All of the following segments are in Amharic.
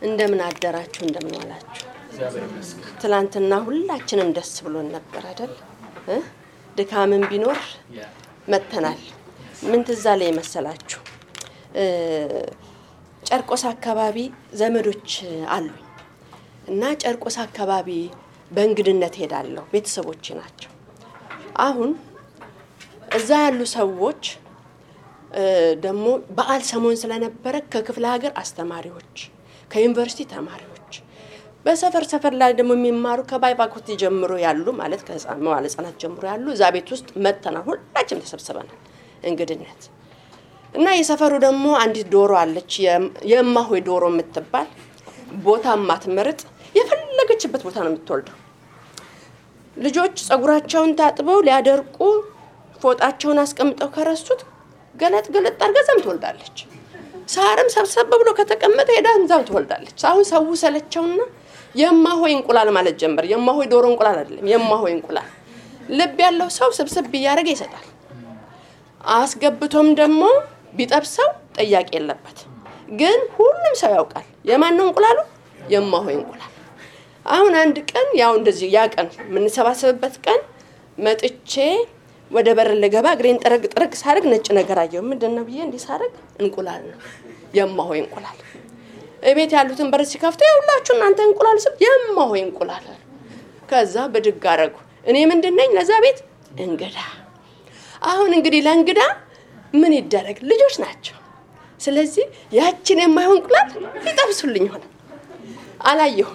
እንደምን አደራችሁ እንደምን ዋላችሁ ትላንትና ሁላችንም ደስ ብሎን ነበር አይደል ድካምን ቢኖር መተናል ምን ትዛለ ይመስላችሁ ጨርቆስ አካባቢ ዘመዶች አሉ እና ጨርቆስ አካባቢ በእንግድነት ሄዳለሁ ቤተሰቦች ናቸው አሁን እዛ ያሉ ሰዎች ደሞ በዓል ሰሞን ስለነበረ ከክፍለ ሀገር አስተማሪዎች ከዩኒቨርሲቲ ተማሪዎች በሰፈር ላይ ደሞ የሚማሩ ከባይባኮት ጀምሮ ያሉ ማለት ከህፃናት ጀምሮ ያሉ እዛ ቤት ውስጥ መተና ሁላችንም ተሰብስበናል እንግድነት እና የሰፈሩ ደሞ አንዲት ዶሮ አለች የማሆይ ዶሮ የምትባል ቦታ ማትመርጥ የፈለገችበት ቦታ ነው የምትወልደው ልጆች ጸጉራቸውን ታጥበው ሊያደርቁ ፎጣቸውን አስቀምጠው ከረሱት ገለጥ አርገዛም ትወልዳለች ሳርም ሰብሰብ ብሎ ከተቀመጠ ሄዳም ትወልዳለች አሁን ሰው ሰለቸውና የማሆይ እንቁላል ማለት ጀመር የማሆይ ዶሮ እንቁላል አይደለም የማሆይ እንቁላል ልብ ያለው ሰው ሰብሰብ ያረገ ይሰጣል አስገብቶም ደሞ ቢጠብሰው ጥያቄ የለበት ግን ሁሉም ሰው ያውቃል የማን ነው እንቁላሉ የማሆይ እንቁላል አሁን አንድ ቀን ያው እንደዚህ ያቀን ምን ሰባሰብበት ቀን መጥቼ ወደ በር ለገባ ግሬን ጥረግ ሳርግ ነጭ ነገር አየው ምንድነው ብዬ እንዲ ሳርግ እንቁላል ነው የማሆይ እንቁላል እቤት ያሉትን በር ሲከፍቱ ያውላችሁ እናንተ እንቁላል ስብ የማሆይ እንቁላል ከዛ በድግ አረጉ እኔ ምንድነኝ ለዛ ቤት እንግዳ አሁን እንግዲህ ለእንግዳ ምን ይደረግ ልጆች ናቸው ስለዚህ ያችን የማሆይ እንቁላል ይጠብሱልኝ ሆነ አላየሁ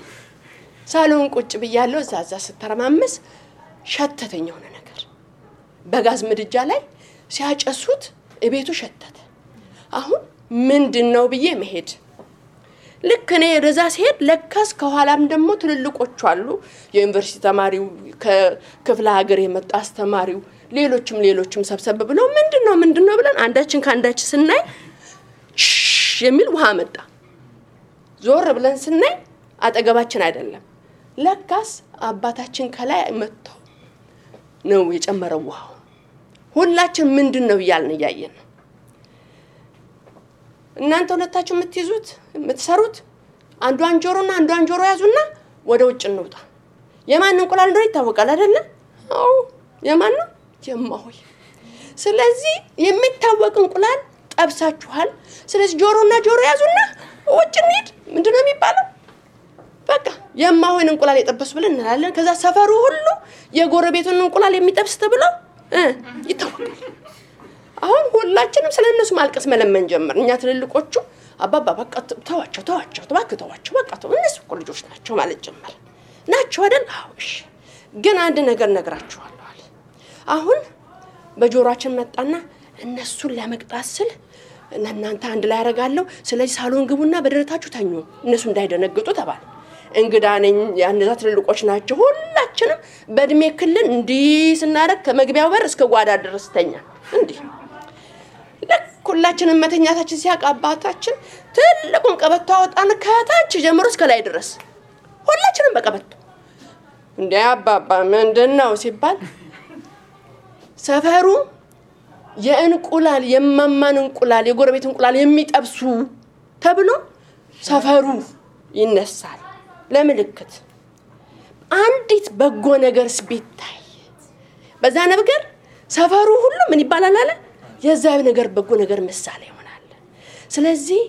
ሳሎን ቁጭ ብያለሁ ዛዛ ስተረማመስ ሸተተኝ ሆነ ነገር በጋዝ ምድጃ ላይ ሲያጨሱት እቤቱ ሸተተ አሁን ምንድነው ብዬ መሄድ ልክ እኔ ረዛ ሲሄድ ለካስ ከኋላም ደሞ ትልልቆቹ አሉ የዩኒቨርሲቲ ተማሪው ከክፍለ ሀገር የመጣ አስተማሪው ሌሎችም ሰብሰብ ብለው ምንድነው ብለን አንዳችን ካንዳች ስናይ የሚል ውሃ መጣ ዞር ብለን ስናይ አጠገባችን አይደለም ለካስ አባታችን ከላይ መጥቶ ነው የጨመረው ውሃው ሁላችን ምንድነው ይያልን ያያየን እናንተ ሁለታችሁ የምትይዙት የምትሰሩት አንዷን ጆሮ ያዙና ወደ ውጭ እንውጣ የማን እንቁላል እንደሆነ ይታወቃል አይደለ አው የማን ነው የማሆይ ስለዚህ የሚታወቅ እንቁላል ጠብሳችኋል ስለዚህ ጆሮ ያዙና ውጭ እንሂድ ምንድነው የሚባለው በቃ የማሆይን እንቁላል የጠበሱ ብለን እንላለን ከዛ ሰፈሩ ሁሉ የጎረቤቱን እንቁላል የሚጠብስ ተብሎ ይታወቃል አሁን ሁላችንም ስለነሱ ማልቀስ መለመን ጀመር እኛ ትልልቆቹ አባባ በቃ ተዋቸው በቃ እነሱ ልጆች ናቸው ማለት ጀመር ናቸው አይደል አውሽ ግን አንድ ነገር ነግራችኋለሁ አለ አሁን በጆሮአችን መጣና እነሱን ለመቅጣት ስል እናንተ አንድ ላይ ያረጋለሁ ስለዚህ ሳሎን ግቡና በደረታችሁ ተኙ እነሱ እንዳይደነግጡ ተባለ እንግዳ ነኝ ያንዛ ትልልቆች ናቸው ሁላችንም በእድሜ ክልል እንዲ ስናረክ ከመግቢያው በር እስከ ጓዳ ድረስ ተኛ እንዴ ለኩላችንም መተኛታችን ሲያቃባታችን ትልቁን ቀበቶ አወጣን ከታች ጀምሮ እስከ ላይ ድረስ ሁላችንም በቀበቶ እንዴ አባባ ምንድነው ሲባል ሰፈሩ የእንቁላል የማማን እንቁላል የጎረቤት እንቁላል የሚጠብሱ ተብሎ ሰፈሩ ይነሳል ለምልክት አንዲት በጎ ነገር ስቢታይ በዛ ነገር ሰፈሩ ሁሉ ምን ይባላል አለ የዛው ነገር በጎ ነገር ምሳሌ ይሆናል ስለዚህ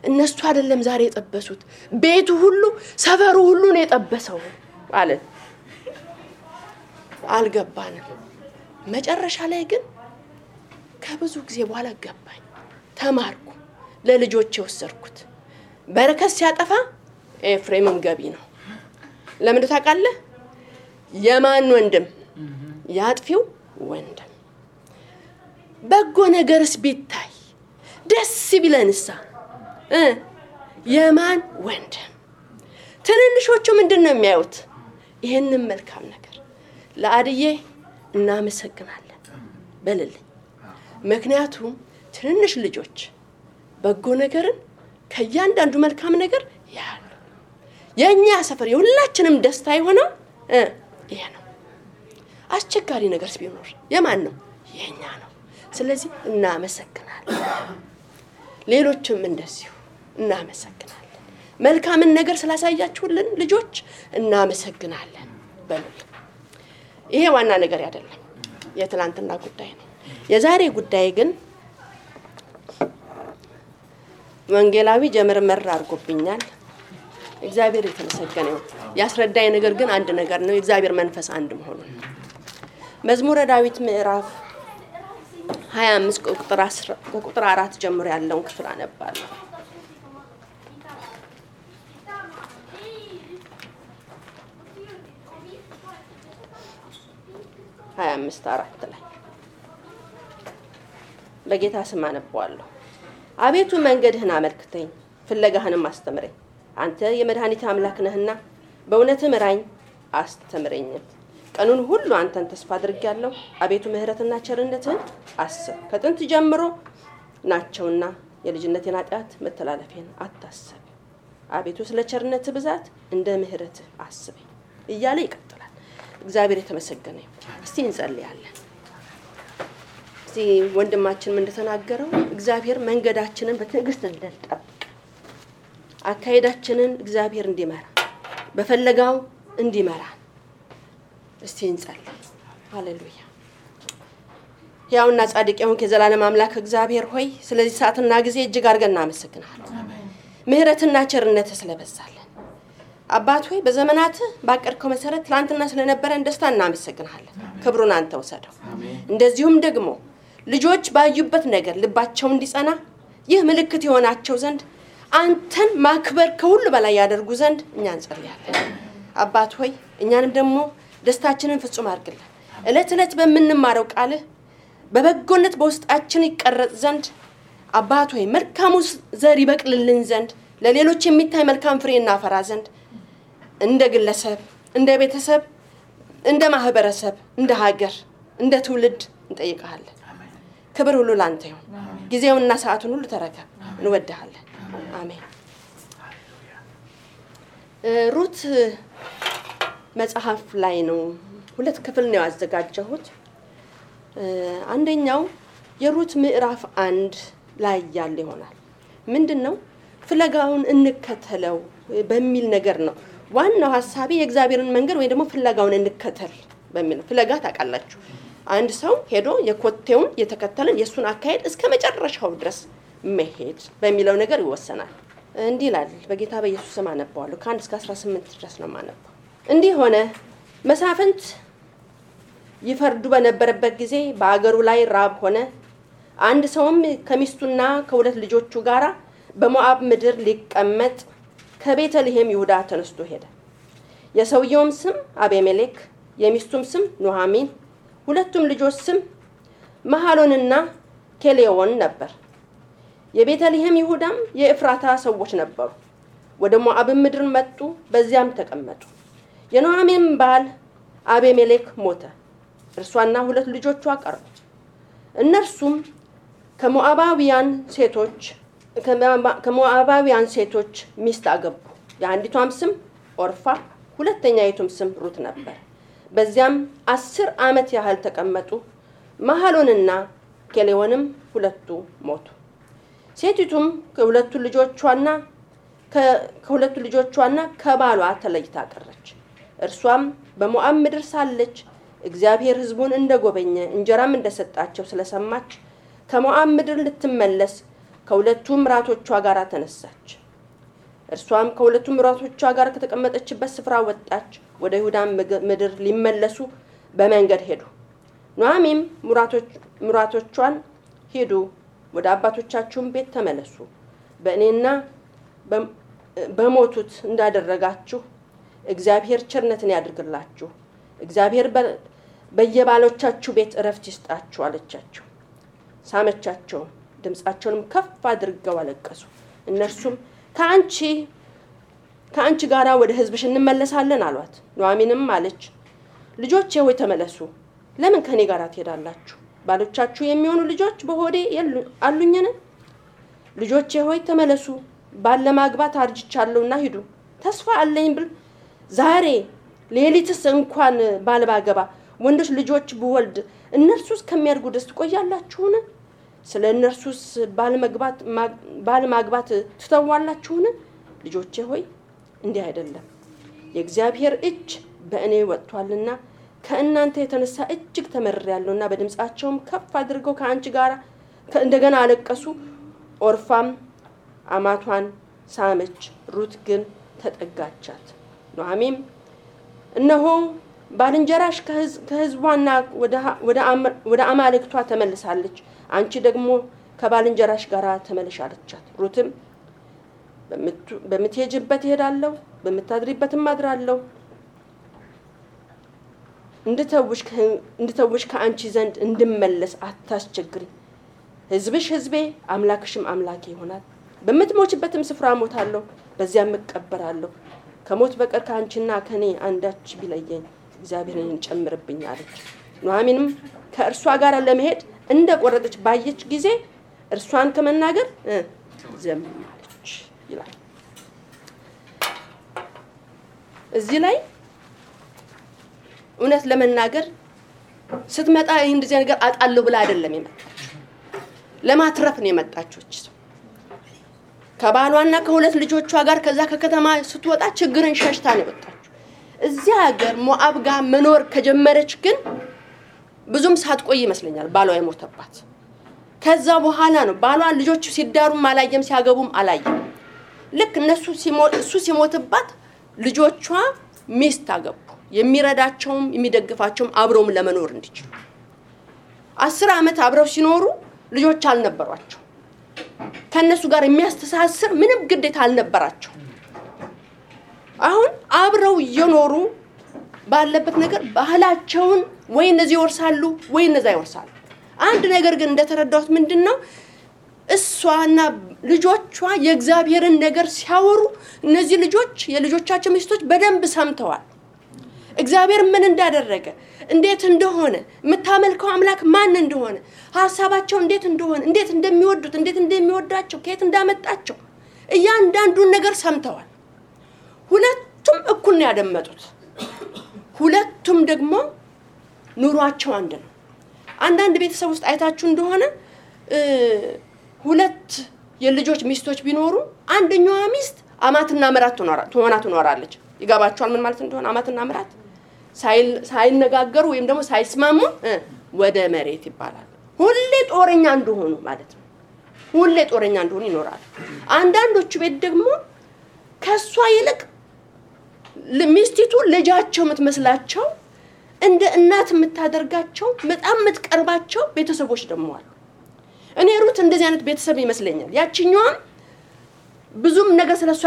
እነሱ አይደለም ዛሬ የጠበሱት ቤቱ ሁሉ ሰፈሩ ሁሉ ነው የጠበሰው አለ አልገባንም መጨረሻ ላይ ግን ከብዙ ጊዜ በኋላ ገባኝ ተማርኩ ለልጆቼ ወሰርኩት በረከት ሲያጠፋ ኤፍሬምም ገቢ ነው ለምን ታውቃለህ የማን ወንድም ያጥፊው ወንድም በጎ ነገርስ ቢታይ ደስ ቢለንሳ የማን ወንድም ትንንሾቹ ምንድነው የሚያዩት ይሄንን መልካም ነገር ለአድዬ እናመሰግናለን በልልኝ ምክንያቱም ትንንሽ ልጆች በጎ ነገርን ከያንዳንዱ መልካም ነገር ያሉ የኛ ሰፈር የሁላችንም ደስታ ይሆነው ይሄ ነው አስቸጋሪ ነገርስ ቢኖር የማን ነው የኛ ነው ስለዚህ እናመሰግናለን ሌሎችም እንደዚሁ እናመሰግናለን መልካምን ነገር ስላሳያችሁልን ልጆች እናመሰግናለን በሉ። ይሄ ዋና ነገር አይደለም፣ የትላንትና ጉዳይ ነው። የዛሬ ጉዳይ ግን ወንጌላዊ ጀመርመር አድርጎብኛል። እግዚአብሔር የተመሰገነ ይሁን። ያስረዳኝ ነገር ግን አንድ ነገር ነው፣ የእግዚአብሔር መንፈስ አንድ መሆኑን። መዝሙረ ዳዊት ምዕራፍ 25 ቁጥር 4 ጀምሮ ያለውን ክፍል አነባለሁ። 25:4 ላይ በጌታ ስም አነባዋለሁ። አቤቱ መንገድህን አመልክተኝ፣ ፍለጋህንም አስተምረኝ። አንተ የመድኃኒት አምላክ ነህና በእውነት ምራኝ አስተምረኝም። ቀኑን ሁሉ አንተን ተስፋ አድርጌያለሁ። አቤቱ ምህረትና ቸርነትህን አስብ፣ ከጥንት ጀምሮ ናቸውና የልጅነቴን ኃጢአት መተላለፌን አታስብ። አቤቱ ስለ ቸርነትህ ብዛት እንደ ምህረትህ አስበኝ እያለ ይቀጥላል። እግዚአብሔር የተመሰገነ ይሁን። እስቲ እንጸልያለን። እስቲ ወንድማችን እንደተናገረው እግዚአብሔር መንገዳችንን በትዕግስት እንድንጠብቅ አካሄዳችንን እግዚአብሔር እንዲመራ በፈለጋው እንዲመራ እስቲ እንጸልይ። ሃሌሉያ። ያውና ጻድቅ የሆንክ የዘላለም አምላክ እግዚአብሔር ሆይ ስለዚህ ሰዓትና ጊዜ እጅግ አድርገን እናመሰግናለን። ምህረትና ቸርነት ስለበዛልን አባት ሆይ በዘመናት ባቀርከው መሰረት ትላንትና ስለነበረን ደስታ እናመሰግናለን። ክብሩን አንተ ወሰደው። እንደዚሁም ደግሞ ልጆች ባዩበት ነገር ልባቸው እንዲጸና ይህ ምልክት ይሆናቸው ዘንድ አንተን ማክበር ከሁሉ በላይ ያደርጉ ዘንድ እኛ እንጸልያለን። አባት ሆይ እኛንም ደግሞ ደስታችንን ፍጹም አድርግልን። እለት እለት በመንማረው ቃልህ በበጎነት በውስጣችን ይቀረጽ ዘንድ አባት ሆይ መልካሙ ዘር ይበቅልልን ዘንድ ለሌሎች የሚታይ መልካም ፍሬ እናፈራ ዘንድ እንደ ግለሰብ፣ እንደ ቤተሰብ፣ እንደ ማህበረሰብ፣ እንደ ሀገር፣ እንደ ትውልድ እንጠይቃለን። ክብር ሁሉ ላንተ ይሁን። ጊዜውንና ሰዓቱን ሁሉ ተረከብ። እንወድሃለን። አሜን። ሩት መጽሐፍ ላይ ነው ሁለት ክፍል ነው ያዘጋጀሁት። አንደኛው የሩት ምዕራፍ 1 ላይ ያለ ይሆናል። ምንድነው? ፍለጋውን እንከተለው በሚል ነገር ነው። ዋናው ሐሳቤ የእግዚአብሔርን መንገድ ወይ ደግሞ ፍለጋውን እንከተል በሚል ፍለጋ ታውቃላችሁ። አንድ ሰው ሄዶ የኮቴውን የተከተለን የሱን አካሄድ እስከ መጨረሻው ድረስ መሄድ በሚለው ነገር ይወሰናል። እንዲህ ይላል። በጌታ በኢየሱስ ስም አነባዋለሁ። ከ1 እስከ 18 ድረስ ነው ማነባው። እንዲህ ሆነ፣ መሳፍንት ይፈርዱ በነበረበት ጊዜ በአገሩ ላይ ራብ ሆነ። አንድ ሰውም ከሚስቱና ከሁለት ልጆቹ ጋራ በሞዓብ ምድር ሊቀመጥ ከቤተልሔም ይሁዳ ተነስቶ ሄደ። የሰውየውም ስም አቤሜሌክ፣ የሚስቱም ስም ኑሃሚን፣ ሁለቱም ልጆች ስም መሐሎንና ኬሌዎን ነበር። የቤተልሔም ይሁዳም የኤፍራታ ሰዎች ነበሩ። ወደ ሞዓብ ምድር መጡ፣ በዚያም ተቀመጡ። የኑሃሚን ባል አቤሜሌክ ሞተ፣ እርሷና ሁለት ልጆቿ ቀሩ። እነርሱም ከሞዓባውያን ሴቶች ሚስት አገቡ። የአንዲቷም ስም ኦርፋ፣ ሁለተኛይቱም ስም ሩት ነበር። በዚያም 10 ዓመት ያህል ተቀመጡ። መሐሎንና ኬሌዎንም ሁለቱ ሞቱ። ሴቲቱም ከሁለቱ ልጆቿና ከባሏ ተለይታ ቀረች። እርሷም በሞዓብ ምድር ሳለች እግዚአብሔር ሕዝቡን እንደጎበኘ እንጀራም እንደሰጣቸው ስለሰማች ከሞዓብ ምድር ልትመለስ ከሁለቱ ምራቶቿ ጋር ተነሳች። እርሷም ከሁለቱ ምራቶቿ ጋር ከተቀመጠችበት ስፍራ ወጣች። ወደ ይሁዳ ምድር ሊመለሱ በመንገድ ሄዱ። ኑሃሚንም ምራቶቿን ሄዱ፣ ወደ አባቶቻችሁም ቤት ተመለሱ፣ በእኔና በሞቱት እንዳደረጋችሁ እግዚአብሔር ቸርነትን ያድርግላችሁ፣ እግዚአብሔር በየባሎቻችሁ ቤት እረፍት ይስጣችሁ አለቻቸው። ሳመቻቸው፣ ድምጻቸውንም ከፍ አድርገው አለቀሱ። እነርሱም ከአንቺ ጋራ ወደ ሕዝብሽ እንመለሳለን አሏት። ኑሃሚንም አለች፣ ልጆቼ ሆይ ተመለሱ፣ ለምን ከኔ ጋር ትሄዳላችሁ? ባሎቻችሁ የሚሆኑ ልጆች በሆዴ አሉኝን? ልጆቼ ሆይ ተመለሱ፣ ባል ለማግባት አርጅቻለሁና ሂዱ። ተስፋ አለኝ ብል ዛሬ ሌሊትስ እንኳን ባል ባገባ ወንዶች ልጆች ብወልድ እነርሱስ ከሚያድጉ ድረስ ትቆያላችሁን? ስለ እነርሱስ ባል ማግባት ትተዋላችሁን? ልጆቼ ሆይ እንዲህ አይደለም የእግዚአብሔር እጅ በእኔ ወጥቷልና ከእናንተ የተነሳ እጅግ ተመርሬያለሁና በድምጻቸውም ከፍ አድርገው ከአንቺ ጋር እንደገና አለቀሱ ኦርፋም አማቷን ሳመች ሩት ግን ተጠጋቻት ኑኃሚንም እነሆ ባልንጀራሽ ከሕዝቧና ወደ አማልክቷ ተመልሳለች አንቺ ደግሞ ከባልንጀራሽ ጋር ተመለሻለቻት ሩትም በምትሄጂበት እሄዳለሁ በምታድሪበትም አድራለሁ እንድተውሽ ከአንቺ ዘንድ እንድመለስ አታስቸግሪ ሕዝብሽ ሕዝቤ አምላክሽም አምላኬ ይሆናል በምትሞችበትም ስፍራ ሞታለሁ በዚያም እቀበራለሁ ከሞት በቀር ከአንቺና ከኔ አንዳች ቢለየኝ እግዚአብሔርን ጨምርብኝ አለች ኑኃሚንም ከእርሷ ጋር ለመሄድ እንደቆረጠች ባየች ጊዜ እርሷን ከመናገር ዝም አለች ይላል እዚህ ላይ እውነት ለመናገር ስትመጣ ይሄን እንደዚህ ነገር አጣለው ብላ አይደለም የመጣችው ለማትረፍ ነው የመጣችው ከባሏና ከሁለት ልጆቿ ጋር ከዛ ከከተማ ስትወጣ ችግርን ሸሽታ ነው የወጣችው እዚህ ሀገር ሞዓብ ጋር መኖር ከጀመረች ግን ብዙም ሳትቆይ ይመስለኛል ባሏ የሞተባት ከዛ በኋላ ነው ባሏ ልጆቹ ሲዳሩም አላየም ሲያገቡም አላየም ልክ እሱ ሲሞትባት ልጆቿ ሚስት አገቡ የሚረዳቸውም የሚደግፋቸውም አብረውም ለመኖር እንዲችሉ 10 ዓመት አብረው ሲኖሩ ልጆች አልነበሯቸው ከነሱ ጋር የሚያስተሳስር ምንም ግዴታ አልነበራቸው አሁን አብረው እየኖሩ ባለበት ነገር ባህላቸውን ወይ እነዚህ ይወርሳሉ ወይ እነዛ ይወርሳሉ አንድ ነገር ግን እንደተረዳሁት ምንድነው እሷና ልጆቿ የእግዚአብሔርን ነገር ሲያወሩ እነዚህ ልጆች የልጆቻቸው ሚስቶች በደንብ ሰምተዋል እግዚአብሔር ምን እንዳደረገ እንዴት እንደሆነ መታመልከው አምላክ ማን እንደሆነ ሐሳባቸው እንዴት እንደሆነ እንዴት እንደሚወዱት እንዴት እንደሚወዳቸው ከየት እንዳመጣቸው እያንዳንዱን ነገር ሰምተዋል ሁለቱም እኩል ነው ያደመጡት ሁለቱም ደግሞ ኑሯቸው አንድ ነው አንዳንድ ቤተሰብ ውስጥ አይታችሁ እንደሆነ ሁለት የልጆች ሚስቶች ቢኖሩ አንደኛዋ ሚስት አማትና ምራት ትሆናለች ይጋባቸዋል ምን ማለት እንደሆነ አማትና ምራት ሳይነጋገሩ ወይም ደግሞ ሳይስማሙ ወደ መሬት ይባላል ሁሌ ጦረኛ እንደሆኑ ማለት ነው ሁሌ ጦረኛ እንደሆኑ ይኖራል አንዳንዶቹ ቤት ደግሞ ከሷ ይልቅ ሚስቲቱ ልጃቸው የምትመስላቸው እንደ እናት የምታደርጋቸው በጣም የምትቀርባቸው ቤተሰቦች ደግሞ አሉ እኔ ሩት እንደዚህ አይነት ቤተሰብ ይመስለኛል ያቺኛዋም ብዙም ነገር ስለሷ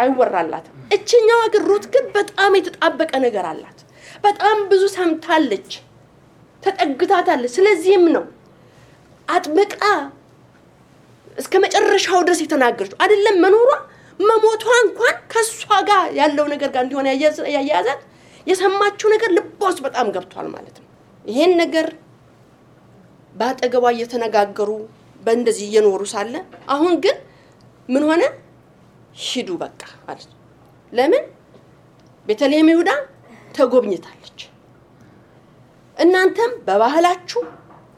አይወራላት እቺኛዋ ግን ሩት ግን በጣም የተጣበቀ ነገር አላት በጣም ብዙ ሰምታለች ተጠግታታለች ስለዚህም ነው አጥብቃ እስከ መጨረሻው ድረስ የተናገረችው አይደለም መኖሯ መሞቷ እንኳን ከሷ ጋር ያለው ነገር ጋር እንዲሆነ ያያዛት የሰማችው ነገር ልቧስ በጣም ገብቷል ማለት ነው ይሄን ነገር ባጠገቧ እየተነጋገሩ በእንደዚህ እየኖሩ ሳለ አሁን ግን ምን ሆነ ሂዱ በቃ ማለት ለምን ቤተልሔም ይሁዳ ተጎብኝታለች እናንተም በባህላችሁ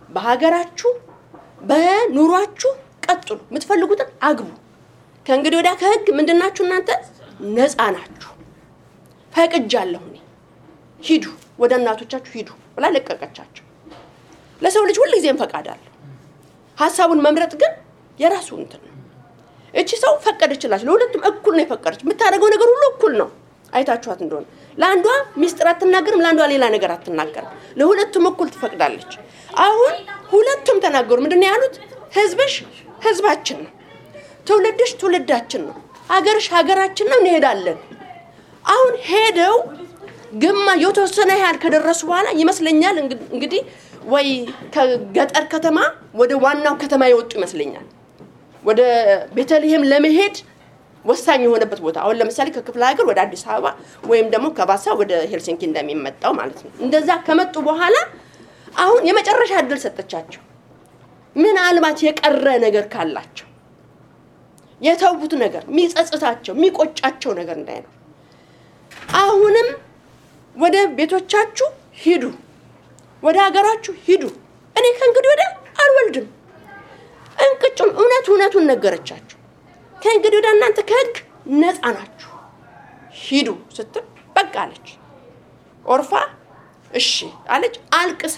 በሀገራችሁ በኑሯችሁ ቀጥሉ የምትፈልጉትን አግቡ ከእንግዲህ ወዲያ ከህግ ምንድናችሁ እናንተ ነፃ ናችሁ ፈቅጃለሁ ሂዱ ወደ እናቶቻችሁ ሂዱ ብላ ለቀቀቻቸው ለሰው ልጅ ሁሉ ጊዜም ፈቃድ አለ ሐሳቡን መምረጥ ግን የራሱ እንትን ነው እቺ ሰው ፈቀደችላችሁ ለሁለቱም እኩል ነው የፈቀደች የምታደርገው ነገር ሁሉ እኩል ነው አይታችኋት እንደሆነ ለአንዷ ሚስጥር አትናገርም ለአንዷ ሌላ ነገር አትናገርም ለሁለቱም እኩል ትፈቅዳለች አሁን ሁለቱም ተናገሩ ምንድነው ያሉት ህዝብሽ ህዝባችን ነው ትውልድሽ ትውልዳችን ነው ሀገርሽ ሀገራችን ነው እንሄዳለን አሁን ሄደው ግማ የተወሰነ ያህል ከደረሱ በኋላ ይመስለኛል እንግዲህ ወይ ከገጠር ከተማ ወደ ዋናው ከተማ ይወጡ ይመስለኛል ወደ ቤተልሔም ለመሄድ ወሳኝ የሆነበት ቦታ አሁን ለምሳሌ ከክፍለ ሀገር ወደ አዲስ አበባ ወይም ደግሞ ከባሳ ወደ ሄልሲንኪ እንደሚመጣው ማለት ነው እንደዛ ከመጡ በኋላ አሁን የመጨረሻ እድል ሰጠቻቸው ምን አልባት የቀረ ነገር ካላቸው የተውቡት ነገር ሚጸጽታቸው ሚቆጫቸው ነገር እንዳይኖር አሁንም ወደ ቤቶቻችሁ ሂዱ ወደ ሀገራችሁ ሂዱ እኔ ከእንግዲህ ወደ አልወልድም እንቅጭም እውነቱን ነገረቻቸው ከእንግዲህ ወደ እናንተ ከህግ ነፃ ናችሁ ሂዱ ስትል በቃ አለች። ኦርፋ እሺ አለች አልቅሳ።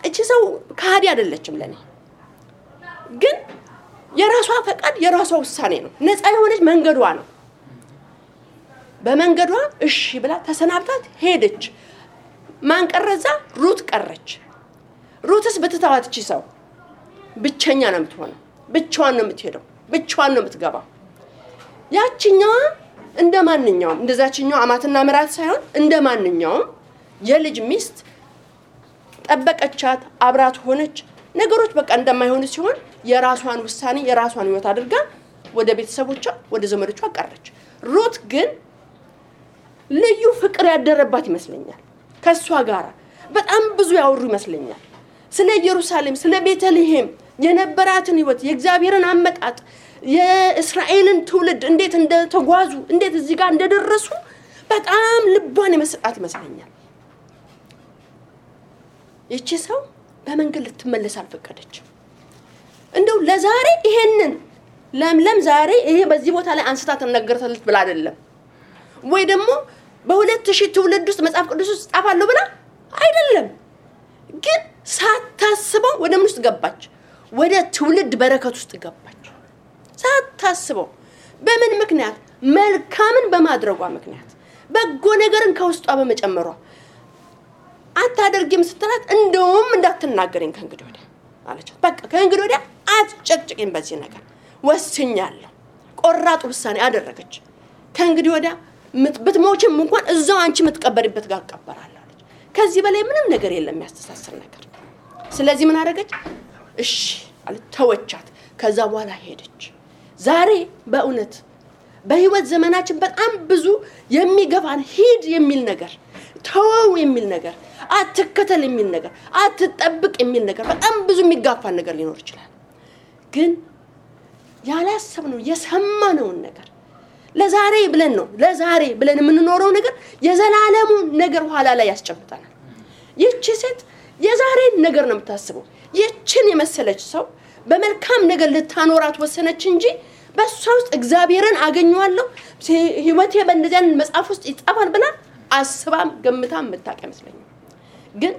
እቺ ሰው ካዲ አይደለችም ለኔ፣ ግን የራሷ ፈቃድ የራሷ ውሳኔ ነው። ነፃ የሆነች መንገዷ ነው። በመንገዷ እሺ ብላ ተሰናብታት ሄደች። ማን ቀረዛ? ሩት ቀረች። ሩትስ ብትተዋት እቺ ሰው ብቸኛ ነው የምትሆነው፣ ብቻዋን ነው የምትሄደው፣ ብቻዋን ነው የምትገባው። ያቺኛዋ እንደማንኛውም እንደዛችኛው አማትና ምራት ሳይሆን እንደማንኛውም የልጅ ሚስት ጠበቀቻት፣ አብራት ሆነች። ነገሮች በቃ እንደማይሆኑ ሲሆን የራሷን ውሳኔ የራሷን ህይወት አድርጋ ወደ ቤተሰቦቿ ወደ ዘመዶቿ ቀረች። ሩት ግን ልዩ ፍቅር ያደረባት ይመስለኛል። ከሷ ጋር በጣም ብዙ ያወሩ ይመስለኛል። ስለ ኢየሩሳሌም ስለ ቤተልሔም የነበራትን ህይወት የእግዚአብሔርን አመጣጥ የእስራኤልን ትውልድ እንዴት እንደተጓዙ እንዴት እዚህ ጋር እንደደረሱ በጣም ልቧን የመስጣት ይመስለኛል። እቺ ሰው በመንገድ ልትመለስ አልፈቀደችም። እንደው ለዛሬ ይሄንን ለምለም ዛሬ ይሄ በዚህ ቦታ ላይ አንስታ ተነገረታለች ብላ አይደለም፣ ወይ ደግሞ በ2000 ትውልድ ውስጥ መጽሐፍ ቅዱስ ውስጥ ጻፋለሁ ብላ አይደለም፣ ግን ሳታስበው ወደ ምን ውስጥ ገባች? ወደ ትውልድ በረከት ውስጥ ገባች። ሳታስበው በምን ምክንያት? መልካምን በማድረጓ ምክንያት፣ በጎ ነገርን ከውስጧ በመጨመሯ። አታደርጊም ስትላት እንደውም እንዳትናገረኝ ከእንግዲህ ወዲያ አለቻት። በቃ ከእንግዲህ ወዲያ አትጨቅጭቂኝ በዚህ ነገር ወስኛለሁ። ቆራጥ ውሳኔ አደረገች። ከእንግዲህ ወዲያ ብትሞችም እንኳን እዛው አንቺ የምትቀበሪበት ጋር ቀበራለሁ አለች። ከዚህ በላይ ምንም ነገር የለም የሚያስተሳስር ነገር። ስለዚህ ምን አደረገች? እሺ አለች፣ ተወቻት። ከዛ በኋላ ሄደች። ዛሬ በእውነት በህይወት ዘመናችን በጣም ብዙ የሚገፋን ሂድ የሚል ነገር፣ ተወው የሚል ነገር፣ አትከተል የሚል ነገር፣ አትጠብቅ የሚል ነገር፣ በጣም ብዙ የሚጋፋን ነገር ሊኖር ይችላል። ግን ያላሰብነው የሰማነውን ነገር ለዛሬ ብለን ነው ለዛሬ ብለን የምንኖረው ነገር የዘላለሙ ነገር ኋላ ላይ ያስጨብጣናል። ይህች ሴት የዛሬን ነገር ነው የምታስበው። ይህችን የመሰለች ሰው በመልካም ነገር ልታኖራት ወሰነች እንጂ በሷ ውስጥ እግዚአብሔርን አገኘዋለሁ ህይወቴ በእንደዚያን መጽሐፍ ውስጥ ይጻፋል ብላ አስባም ገምታም መታቀ መስለኝ። ግን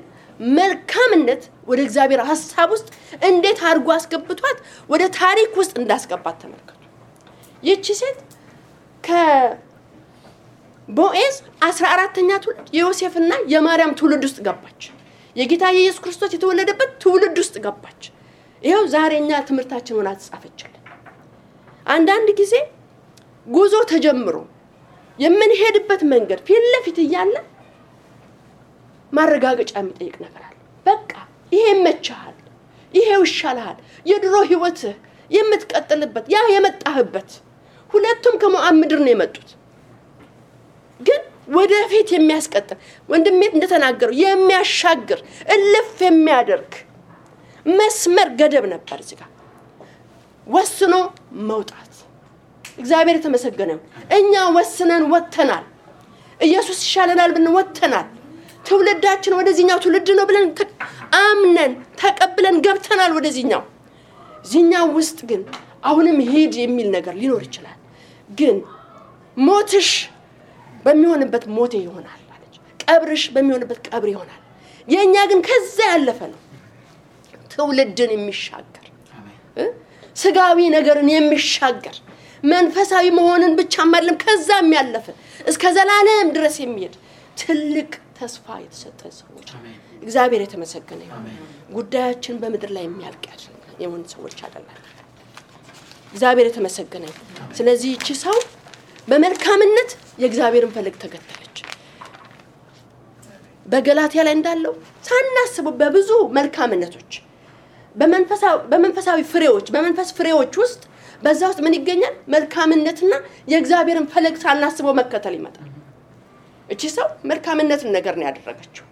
መልካምነት ወደ እግዚአብሔር ሐሳብ ውስጥ እንዴት አድርጎ አስገብቷት ወደ ታሪክ ውስጥ እንዳስገባት ተመልከቱ። ይህች ሴት ከቦዔዝ 14ኛ ትውልድ የዮሴፍና የማርያም ትውልድ ውስጥ ገባች። የጌታ ኢየሱስ ክርስቶስ የተወለደበት ትውልድ ውስጥ ገባች። ይሄው ዛሬኛ ትምህርታችን ሆና ተጻፈችልን። አንዳንድ ጊዜ ጉዞ ተጀምሮ የምንሄድበት መንገድ ፊት ለፊት እያለ ማረጋገጫ የሚጠይቅ ነገር አለ። በቃ ይሄ መቻል፣ ይሄ ይሻላል፣ የድሮ ህይወት የምትቀጥልበት ያ የመጣህበት ሁለቱም ከሞዓብ ምድር ነው የመጡት። ግን ወደፊት የሚያስቀጥል ወንድሜ እንደተናገረው የሚያሻግር እልፍ የሚያደርግ መስመር ገደብ ነበር እዚህ ጋር ወስኖ መውጣት። እግዚአብሔር የተመሰገነ ይሁን። እኛ ወስነን ወጥተናል። ኢየሱስ ይሻለናል ብለን ወጥተናል። ትውልዳችን ወደዚህኛው ትውልድ ነው ብለን አምነን ተቀብለን ገብተናል ወደዚህኛው። ዚህኛው ውስጥ ግን አሁንም ሄድ የሚል ነገር ሊኖር ይችላል። ግን ሞትሽ በሚሆንበት ሞቴ ይሆናል አለች። ቀብርሽ በሚሆንበት ቀብር ይሆናል። የኛ ግን ከዛ ያለፈ ነው። ትውልድን የሚሻገር ስጋዊ ነገርን የሚሻገር መንፈሳዊ መሆንን ብቻ ማለም ከዛም ያለፈ እስከ ዘላለም ድረስ የሚሄድ ትልቅ ተስፋ የተሰጠ ሰዎች እግዚአብሔር የተመሰገነ ይሁን። ጉዳያችን በመድር ላይ የሚያልቅ የሆነ ሰዎች አይደለም። እግዚአብሔር የተመሰገነ ይሁን። ስለዚህ እቺ ሰው በመልካምነት የእግዚአብሔርን ፈለግ ተከተለች። በገላትያ ላይ እንዳለው ሳናስበው በብዙ መልካምነቶች በመንፈሳዊ ፍሬዎች በመንፈስ ፍሬዎች ውስጥ በዛ ውስጥ ምን ይገኛል? መልካምነትና የእግዚአብሔርን ፈለግ ሳናስበው መከተል ይመጣል። እቺ ሰው መልካምነትን ነገር ነው ያደረገችው።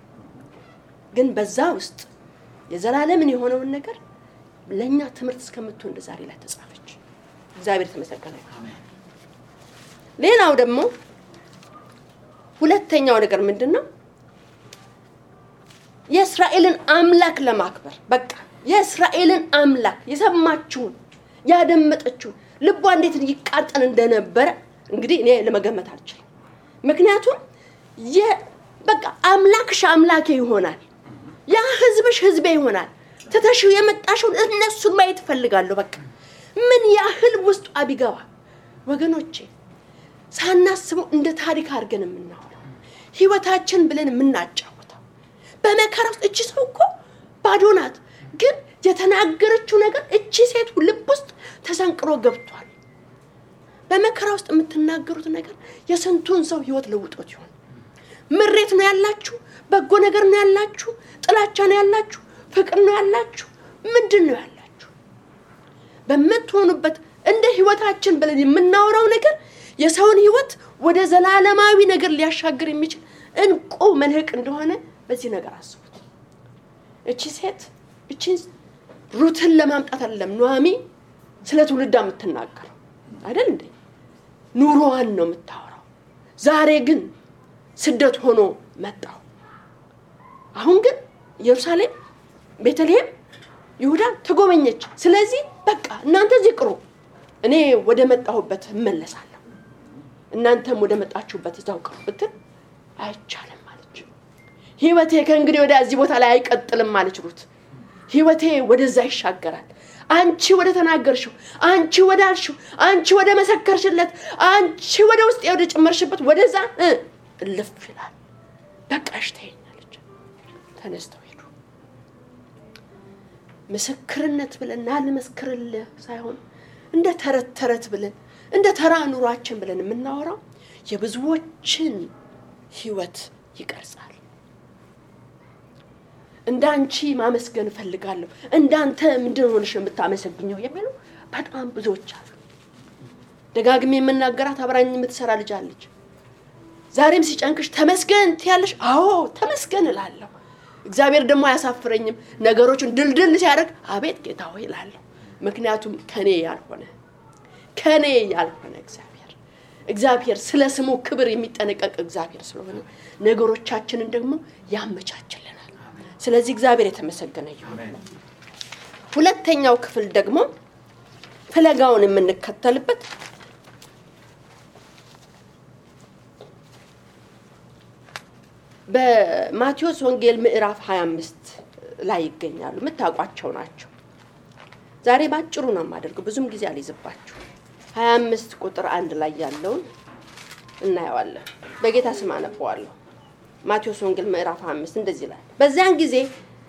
ግን በዛ ውስጥ የዘላለምን የሆነውን ነገር ለኛ ትምህርት እስከምትሆን ዛሬ ላይ ተጻፈች። እግዚአብሔር ተመሰገነ ይሁን። ሌላው ደግሞ ሁለተኛው ነገር ምንድነው? የእስራኤልን አምላክ ለማክበር በቃ የእስራኤልን አምላክ የሰማችሁን ያደመጠችው ልቧ እንዴት ይቃጠል እንደነበረ እንግዲህ እኔ ለመገመት አልችልም። ምክንያቱም በቃ አምላክሽ አምላኬ ይሆናል፣ ያ ህዝብሽ ህዝቤ ይሆናል፣ ተተሽው የመጣሽው እነሱን ማየት ፈልጋለሁ። በቃ ምን ያህል ውስጡ አቢገባ ወገኖቼ ሳናስበው እንደ ታሪክ አድርገን የምናወራው ህይወታችን ብለን የምናጫወተው በመከራ ውስጥ እቺ ሰው እኮ ባዶ ናት፣ ግን የተናገረችው ነገር እቺ ሴት ልብ ውስጥ ተሰንቅሮ ገብቷል። በመከራ ውስጥ የምትናገሩት ነገር የስንቱን ሰው ህይወት ለውጦት ይሆን? ምሬት ነው ያላችሁ? በጎ ነገር ነው ያላችሁ? ጥላቻ ነው ያላችሁ? ፍቅር ነው ያላችሁ? ምንድነው ያላችሁ? በመትሆኑበት እንደ ህይወታችን ብለን የምናወራው ነገር የሰውን ህይወት ወደ ዘላለማዊ ነገር ሊያሻግር የሚችል እንቁ መልህቅ እንደሆነ በዚህ ነገር አስቡት። እቺ ሴት እቺን ሩትን ለማምጣት አይደለም ኑሃሚ ስለ ትውልዳ የምትናገረው አይደል እንዴ? ኑሮዋን ነው የምታወራው። ዛሬ ግን ስደት ሆኖ መጣው። አሁን ግን ኢየሩሳሌም፣ ቤተልሔም፣ ይሁዳ ተጎበኘች። ስለዚህ በቃ እናንተ እዚህ ቅሩ፣ እኔ ወደ መጣሁበት እመለሳለሁ፣ እናንተም ወደ መጣችሁበት እዛው ቅሩ ብትል አይቻልም ማለች። ህይወቴ ከእንግዲህ ወደ እዚህ ቦታ ላይ አይቀጥልም ማለች ሩት። ህይወቴ ወደዛ ይሻገራል። አንቺ ወደ ተናገርሽው፣ አንቺ ወደ አልሽው፣ አንቺ ወደ መሰከርሽለት፣ አንቺ ወደ ውስጥ ወደ ጨመርሽበት ወደዛ እልፍ ይላል። በቃሽ ተይኛለች። ተነስተው ሄዱ። ምስክርነት ብለን አልመስክርልህ ሳይሆን እንደ ተረት ብለን እንደ ተራ ኑሯችን ብለን የምናወራው የብዙዎችን ህይወት ይቀርጻል። እንዳንቺ ማመስገን ፈልጋለሁ፣ እንዳንተ ምንድነው ሆነሽ የምታመሰግኘው የሚሉ በጣም ብዙዎች አሉ። ደጋግሜ የምናገራት አብራኝ የምትሰራ ልጅ አለች። ዛሬም ሲጨንቅሽ ተመስገን ትያለሽ? አዎ ተመስገን እላለሁ። እግዚአብሔር ደግሞ አያሳፍረኝም። ነገሮችን ድልድል ሲያደርግ አቤት ጌታ ሆይ እላለሁ። ምክንያቱም ከኔ ያልሆነ እግዚአብሔር ስለ ስሙ ክብር የሚጠነቀቅ እግዚአብሔር ስለሆነ ነገሮቻችንን ደግሞ ያመቻችልናል። ስለዚህ እግዚአብሔር የተመሰገነ ይሁን። ሁለተኛው ክፍል ደግሞ ፍለጋውን የምንከተልበት በማቴዎስ ወንጌል ምዕራፍ 25 ላይ ይገኛሉ። መታቋቸው ናቸው። ዛሬ ባጭሩ ነው የማደርገው፣ ብዙም ጊዜ አልይዝባችሁ። 25 ቁጥር 1 ላይ ያለውን እናያለን። በጌታ ስም አነበዋለሁ። ማቴዎስ ወንጌል ምዕራፍ 25 እንደዚህ ይላል። በዚያን ጊዜ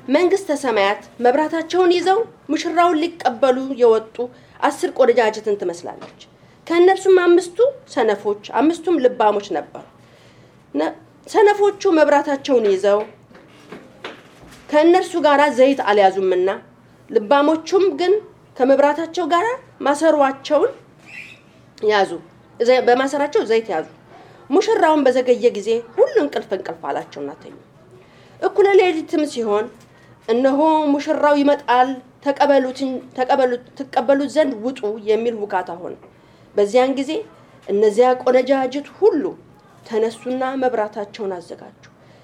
መንግስተ ሰማያት መብራታቸውን ይዘው ሙሽራውን ሊቀበሉ የወጡ 10 ቆነጃጅትን ትመስላለች። ከእነርሱም 5ቱ ሰነፎች 5ቱም ልባሞች ነበሩ። ሰነፎቹ መብራታቸውን ይዘው ከእነርሱ ጋር ዘይት አልያዙምና፣ ልባሞቹም ግን ከመብራታቸው ጋር ማሰሯቸውን ያዙ፣ በማሰራቸው ዘይት ያዙ። ሙሽራውን በዘገየ ጊዜ ሁሉ እንቅልፍ አላቸውና ተኙ። እኩለ ሌሊትም ሲሆን እነሆ ሙሽራው ይመጣል፣ ተቀበሉት ዘንድ ውጡ የሚል ውካታ ሆነ። በዚያን ጊዜ እነዚያ ቆነጃጅት ሁሉ ተነሱና መብራታቸውን አዘጋጁ።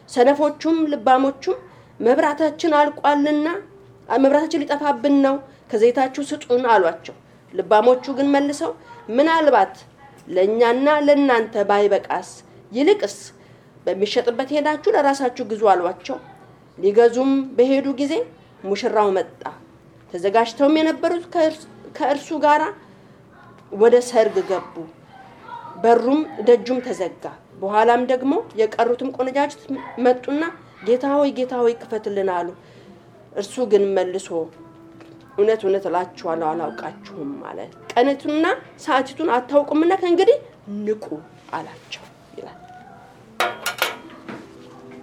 ሰነፎቹም ልባሞቹም መብራታችን አልቋልና መብራታችን ሊጠፋብን ነው፣ ከዘይታችሁ ስጡን አሏቸው። ልባሞቹ ግን መልሰው ምናልባት ለኛና ለናንተ ባይበቃስ ይልቅስ በሚሸጥበት ሄዳችሁ ለራሳችሁ ግዙ አሏቸው። ሊገዙም በሄዱ ጊዜ ሙሽራው መጣ። ተዘጋጅተውም የነበሩት ከእርሱ ጋር ወደ ሰርግ ገቡ። በሩም ደጁም ተዘጋ። በኋላም ደግሞ የቀሩትም ቆነጃጅት መጡና ጌታ ሆይ ክፈትልን አሉ። እርሱ ግን መልሶ እውነት እላችኋለሁ አላውቃችሁም አለ። ቀኑንና ሰዓቲቱን አታውቁምና ከእንግዲህ ንቁ አላቸው ይላል።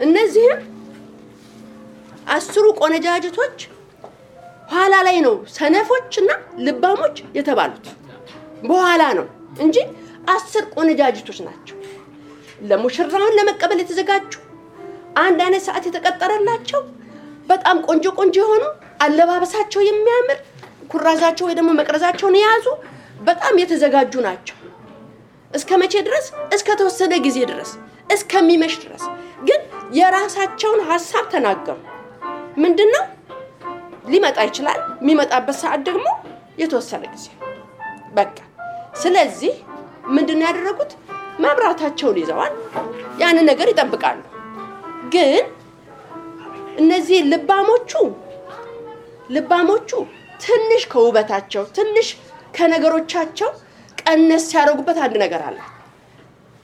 እነዚህም 10 ቆነጃጅቶች ኋላ ላይ ነው ሰነፎችና ልባሞች የተባሉት፣ በኋላ ነው እንጂ 10 ቆነጃጅቶች ናቸው። ለሙሽራውን ለመቀበል የተዘጋጁ፣ አንድ አይነት ሰዓት የተቀጠረላቸው፣ በጣም ቆንጆ የሆኑ አለባበሳቸው የሚያምር፣ ኩራዛቸው ወይ ደግሞ መቅረዛቸውን የያዙ በጣም የተዘጋጁ ናቸው። እስከመቼ ድረስ? እስከ ተወሰነ ጊዜ ድረስ፣ እስከሚመሽ ድረስ። ግን የራሳቸውን ሐሳብ ተናገሩ። ምንድነው? ሊመጣ ይችላል፣ የሚመጣበት ሰዓት ደግሞ የተወሰነ ጊዜ። በቃ ስለዚህ ምንድነው ያደረጉት? መብራታቸውን ይዘዋል፣ ያን ነገር ይጠብቃሉ። ግን እነዚህ ልባሞቹ ትንሽ ከውበታቸው ትንሽ ከነገሮቻቸው ቀነስ ያደርጉበት አንድ ነገር አለ።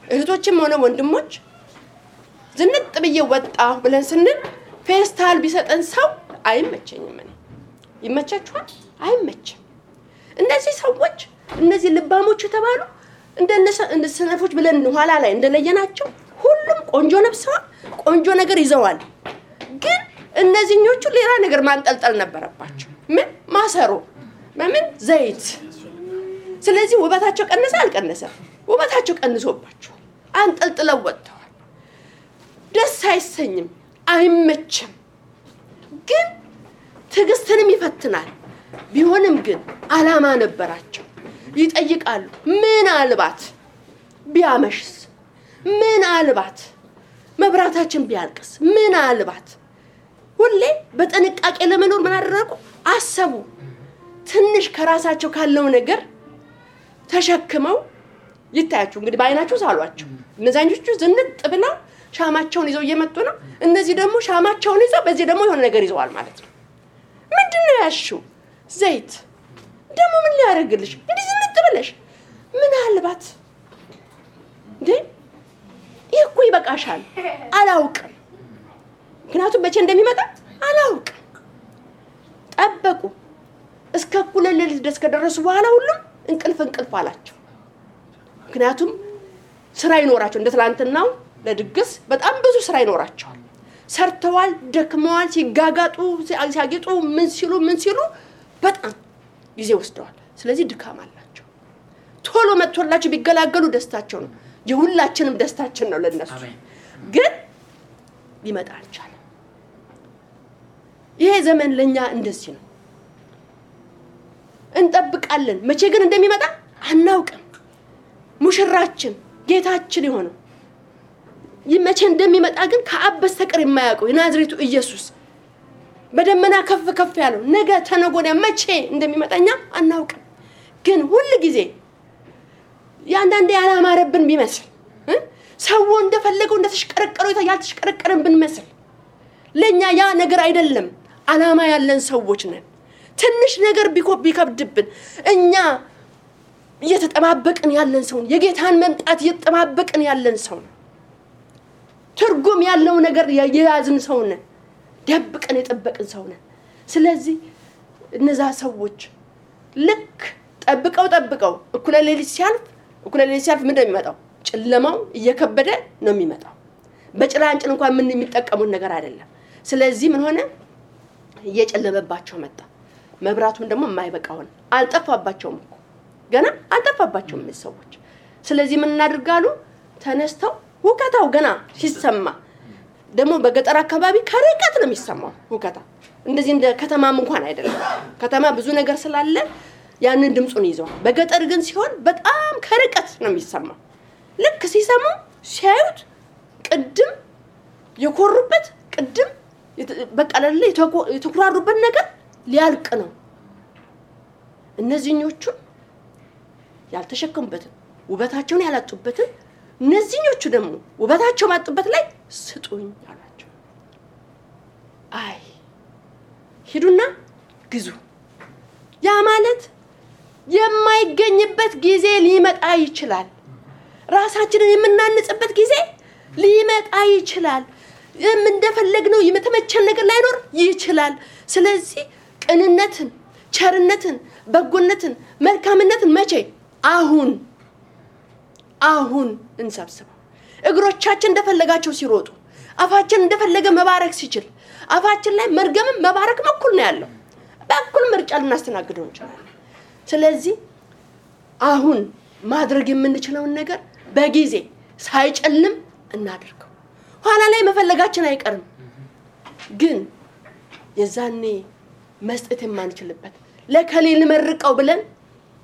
እህቶችም ሆነ ወንድሞች ዝንጥ ብዬ ወጣሁ ብለን ስንል ፌስታል ቢሰጠን ሰው አይመቸኝም። ይመቻችኋል? አይመችም። እነዚህ ሰዎች እነዚህ ልባሞች ተባሉ እንደ ሰነፎች ብለን ኋላ ላይ እንደለየናቸው ሁሉም ቆንጆ ለብሰዋል፣ ቆንጆ ነገር ይዘዋል። ግን እነዚህኞቹ ሌላ ነገር ማንጠልጠል ነበረባቸው። ምን ማሰሮ ምን ዘይት። ስለዚህ ውበታቸው ቀነሰ አልቀነሰ? ውበታቸው ቀንሶባቸው አንጠልጥለው ወጥተዋል። ደስ አይሰኝም፣ አይመችም። ግን ትዕግስትንም ይፈትናል። ቢሆንም ግን አላማ ነበራቸው። ይጠይቃሉ። ምን አልባት ቢያመሽስ? ምን አልባት መብራታችን ቢያልቅስ? ምን አልባት? ሁሌ በጥንቃቄ ለመኖር ምን አደረጉ? አሰቡ። ትንሽ ከራሳቸው ካለው ነገር ተሸክመው ይታያችሁ እንግዲህ በአይናችሁ ሳሏቸው። እነዛኞቹ ዝንጥ ብለው ሻማቸውን ይዘው እየመጡ ነው። እነዚህ ደግሞ ሻማቸውን ይዘው በዚህ ደግሞ የሆነ ነገር ይዘዋል ማለት ነው። ምንድነው ያሽው? ዘይት። ደግሞ ምን ሊያደርግልሽ እንዴ ዝንጥ ብለሽ? ምን አልባት እንዴ ይሄ እኮ ይበቃሻል። አላውቅም፣ ምክንያቱም መቼ እንደሚመጣ አላውቅም። ጠበቁ። እስከ እኩለ ሌሊት ድረስ ከደረሱ በኋላ ሁሉም እንቅልፍ አላቸው። ምክንያቱም ስራ ይኖራቸው እንደ ትላንትናው ለድግስ በጣም ብዙ ስራ ይኖራቸዋል። ሰርተዋል፣ ደክመዋል፣ ሲጋጋጡ ሲያጌጡ ምን ሲሉ በጣም ጊዜ ወስደዋል። ስለዚህ ድካም አላቸው። ቶሎ መጥቶላቸው ቢገላገሉ ደስታቸው ነው። የሁላችንም ደስታችን ነው ለነሱ። ግን ሊመጣ አልቻለም። ይሄ ዘመን ለኛ እንደዚህ ነው። እንጠብቃለን፣ መቼ ግን እንደሚመጣ አናውቅም። ሙሽራችን ጌታችን የሆነው መቼ እንደሚመጣ ግን ከአብ በስተቀር የማያውቀው የናዝሬቱ ኢየሱስ በደመና ከፍ ያለው ነገ ተነጎዳ መቼ እንደሚመጣኛ አናውቅም። ግን ሁሉ ጊዜ ያንዳንዴ ያላማረብን ቢመስል ሰው እንደፈለገው እንደተሽቀረቀረው ያልተሽቀረቀረን ብንመስል ለኛ ያ ነገር አይደለም። አላማ ያለን ሰዎች ነን። ትንሽ ነገር ቢከብድብን እኛ እየተጠባበቅን ያለን ሰው የጌታን መምጣት እየተጠባበቅን ያለን ሰው ነው። ትርጉም ያለው ነገር የያዝን ሰው ነን። ደብቀን የጠበቅን ሰው ነን። ስለዚህ እነዛ ሰዎች ልክ ጠብቀው እኩለ ሌሊት ሲያልፍ ምን እንደሚመጣው ጨለማው እየከበደ ነው የሚመጣው። በጭላንጭል እንኳን ምን የሚጠቀሙት ነገር አይደለም። ስለዚህ ምን ሆነ? እየጨለመባቸው መጣ። መብራቱም ደግሞ የማይበቃውን አልጠፋባቸውም እኮ ገና አልጠፋባቸውም ሰዎች። ስለዚህ ምን እናድርጋሉ? ተነስተው ሁከታው ገና ሲሰማ ደግሞ በገጠር አካባቢ ከርቀት ነው የሚሰማው ሁከታ። እንደዚህ እንደ ከተማም እንኳን አይደለም። ከተማ ብዙ ነገር ስላለ ያንን ድምጹን ይዘዋል። በገጠር ግን ሲሆን በጣም ከርቀት ነው የሚሰማው። ልክ ሲሰሙ ሲያዩት ቅድም የኮሩበት ቅድም በቃ ለለ የተኩራሩበት ነገር ሊያልቅ ነው። እነዚህኞቹ ያልተሸከሙበትን ውበታቸውን ያላጡበትን እነዚህኞቹ ደግሞ ውበታቸው ማጡበት ላይ ስጡኝ አላቸው። አይ ሂዱና ግዙ። ያ ማለት የማይገኝበት ጊዜ ሊመጣ ይችላል። ራሳችንን የምናንጽበት ጊዜ ሊመጣ ይችላል። እንደፈለግነው የመተመቸን ነገር ላይኖር ይችላል። ስለዚህ ቅንነትን፣ ቸርነትን፣ በጎነትን፣ መልካምነትን መቼ? አሁን እንሰብስበው። እግሮቻችን እንደፈለጋቸው ሲሮጡ አፋችን እንደፈለገ መባረክ ሲችል አፋችን ላይ መርገምም መባረክም እኩል ነው ያለው። በእኩል ምርጫ ልናስተናግደው እንችላለን። ስለዚህ አሁን ማድረግ የምንችለውን ነገር በጊዜ ሳይጨልም እናድርገው። ኋላ ላይ መፈለጋችን አይቀርም። ግን የዛኔ መስጠት የማንችልበት ለከሌል መርቀው ብለን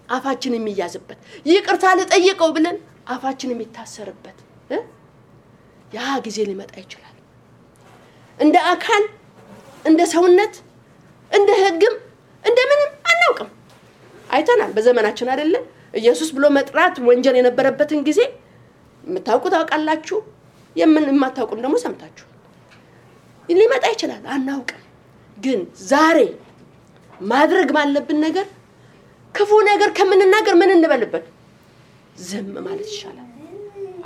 አፋችን የሚያዝበት ይቅርታ ለጠየቀው ብለን አፋችን የሚታሰርበት ያ ጊዜ ሊመጣ ይችላል። እንደ አካል እንደ ሰውነት እንደ ህግም እንደምንም አናውቅም። አይተናል በዘመናችን አይደለ? ኢየሱስ ብሎ መጥራት ወንጀል የነበረበትን ጊዜ የምታውቁት ታውቃላችሁ የማታውቁም ደግሞ ሰምታችሁ ሊመጣ ይችላል አናውቅም ግን ዛሬ ማድረግ ባለብን ነገር ክፉ ነገር ከምንናገር ምን እንበልበት ዝም ማለት ይሻላል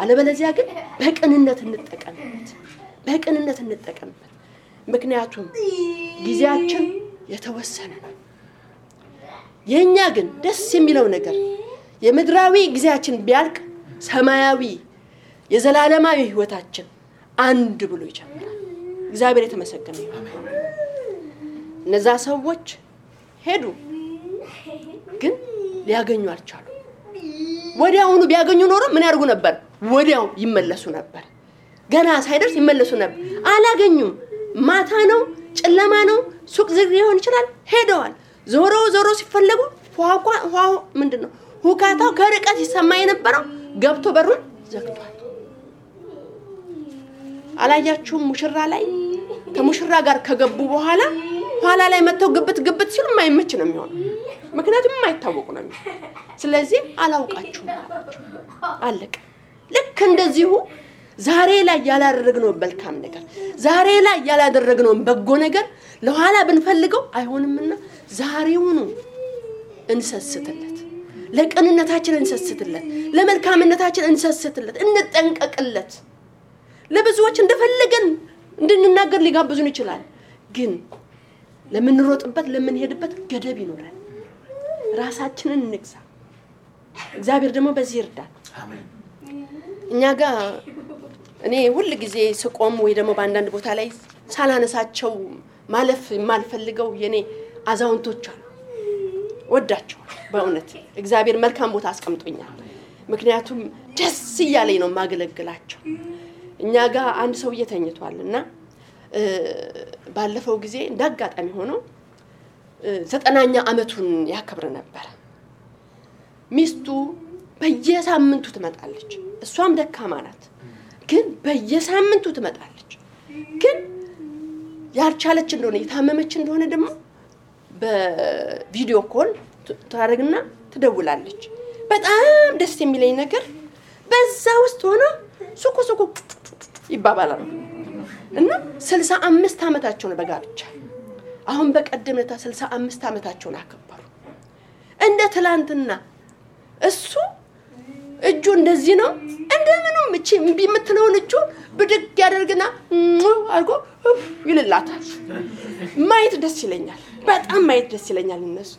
አለበለዚያ ግን በቅንነት እንጠቀምበት ምክንያቱም ጊዜያችን የተወሰነ ነው የኛ ግን ደስ የሚለው ነገር የምድራዊ ጊዜያችን ቢያልቅ ሰማያዊ የዘላለማዊ ህይወታችን አንድ ብሎ ይጀምራል እግዚአብሔር የተመሰገነ ይሁን እነዛ ሰዎች ሄዱ ግን ሊያገኙ አልቻሉ ወዲያውኑ ቢያገኙ ኖሮ ምን ያርጉ ነበር ወዲያው ይመለሱ ነበር ገና ሳይደርስ ይመለሱ ነበር አላገኙም ማታ ነው ጨለማ ነው ሱቅ ዝግ ሊሆን ይችላል ሄደዋል ዞሮ ሲፈልጉ ዋው ምንድነው ሁካታው ከርቀት ይሰማ የነበረው ገብቶ በሩን ዘግቷል አላያችሁም ሙሽራ ላይ ከሙሽራ ጋር ከገቡ በኋላ ኋላ ላይ መተው ግብት ሲሉ ማይመች ነው የሚሆነው ምክንያቱም ማይታወቁ ነው ስለዚህ አላውቃችሁም አለቀ ልክ እንደዚሁ ዛሬ ላይ ያላደረግነው መልካም ነገር ዛሬ ላይ ያላደረግነው በጎ ነገር ለኋላ ብንፈልገው አይሆንምና ዛሬውኑ እንሰስትለት ለቅንነታችን እንሰስትለት ለመልካምነታችን እንሰስትለት እንጠንቀቅለት ለብዙዎች እንደፈለገን እንድንናገር ሊጋብዙን ይችላል ግን ለምንሮጥበት ለምንሄድበት ገደብ ይኖራል ራሳችንን እንግዛ እግዚአብሔር ደግሞ በዚህ ይርዳል አሜን እኛ ጋር እኔ ሁሉ ጊዜ ስቆም ወይ ደግሞ በአንዳንድ ቦታ ላይ ሳላነሳቸው ማለፍ የማልፈልገው የኔ አዛውንቶች አሉ ወዳቸው በእውነት እግዚአብሔር መልካም ቦታ አስቀምጦኛል ምክንያቱም ደስ ይያለኝ ነው ማገለግላቸው እኛ ጋር አንድ ሰው እየተኝቷልና ባለፈው ጊዜ እንዳጋጣሚ ሆኖ 90ኛ አመቱን ያከብር ነበር ሚስቱ በየሳምንቱ ትመጣለች እሷም ደካማ ናት ግን በየሳምንቱ ትመጣለች ግን ያልቻለች እንደሆነ የታመመች እንደሆነ ደግሞ በቪዲዮ ኮል ታረግና ትደውላለች በጣም ደስ የሚለኝ ነገር በዛ ውስጥ ሆነ ሱቁ ይባባላሉ እና 65 አመታቸው ነው በጋብቻ አሁን በቀደምታ 65 አመታቸውን አከበሩ እንደ ትላንትና እሱ እጁ እንደዚህ ነው እንደምንም እቺ እምቢ የምትለውን እጁ ብድግ ያደርግና አርጎ ይልላታል ማየት ደስ ይለኛል በጣም ማየት ደስ ይለኛል እነሱ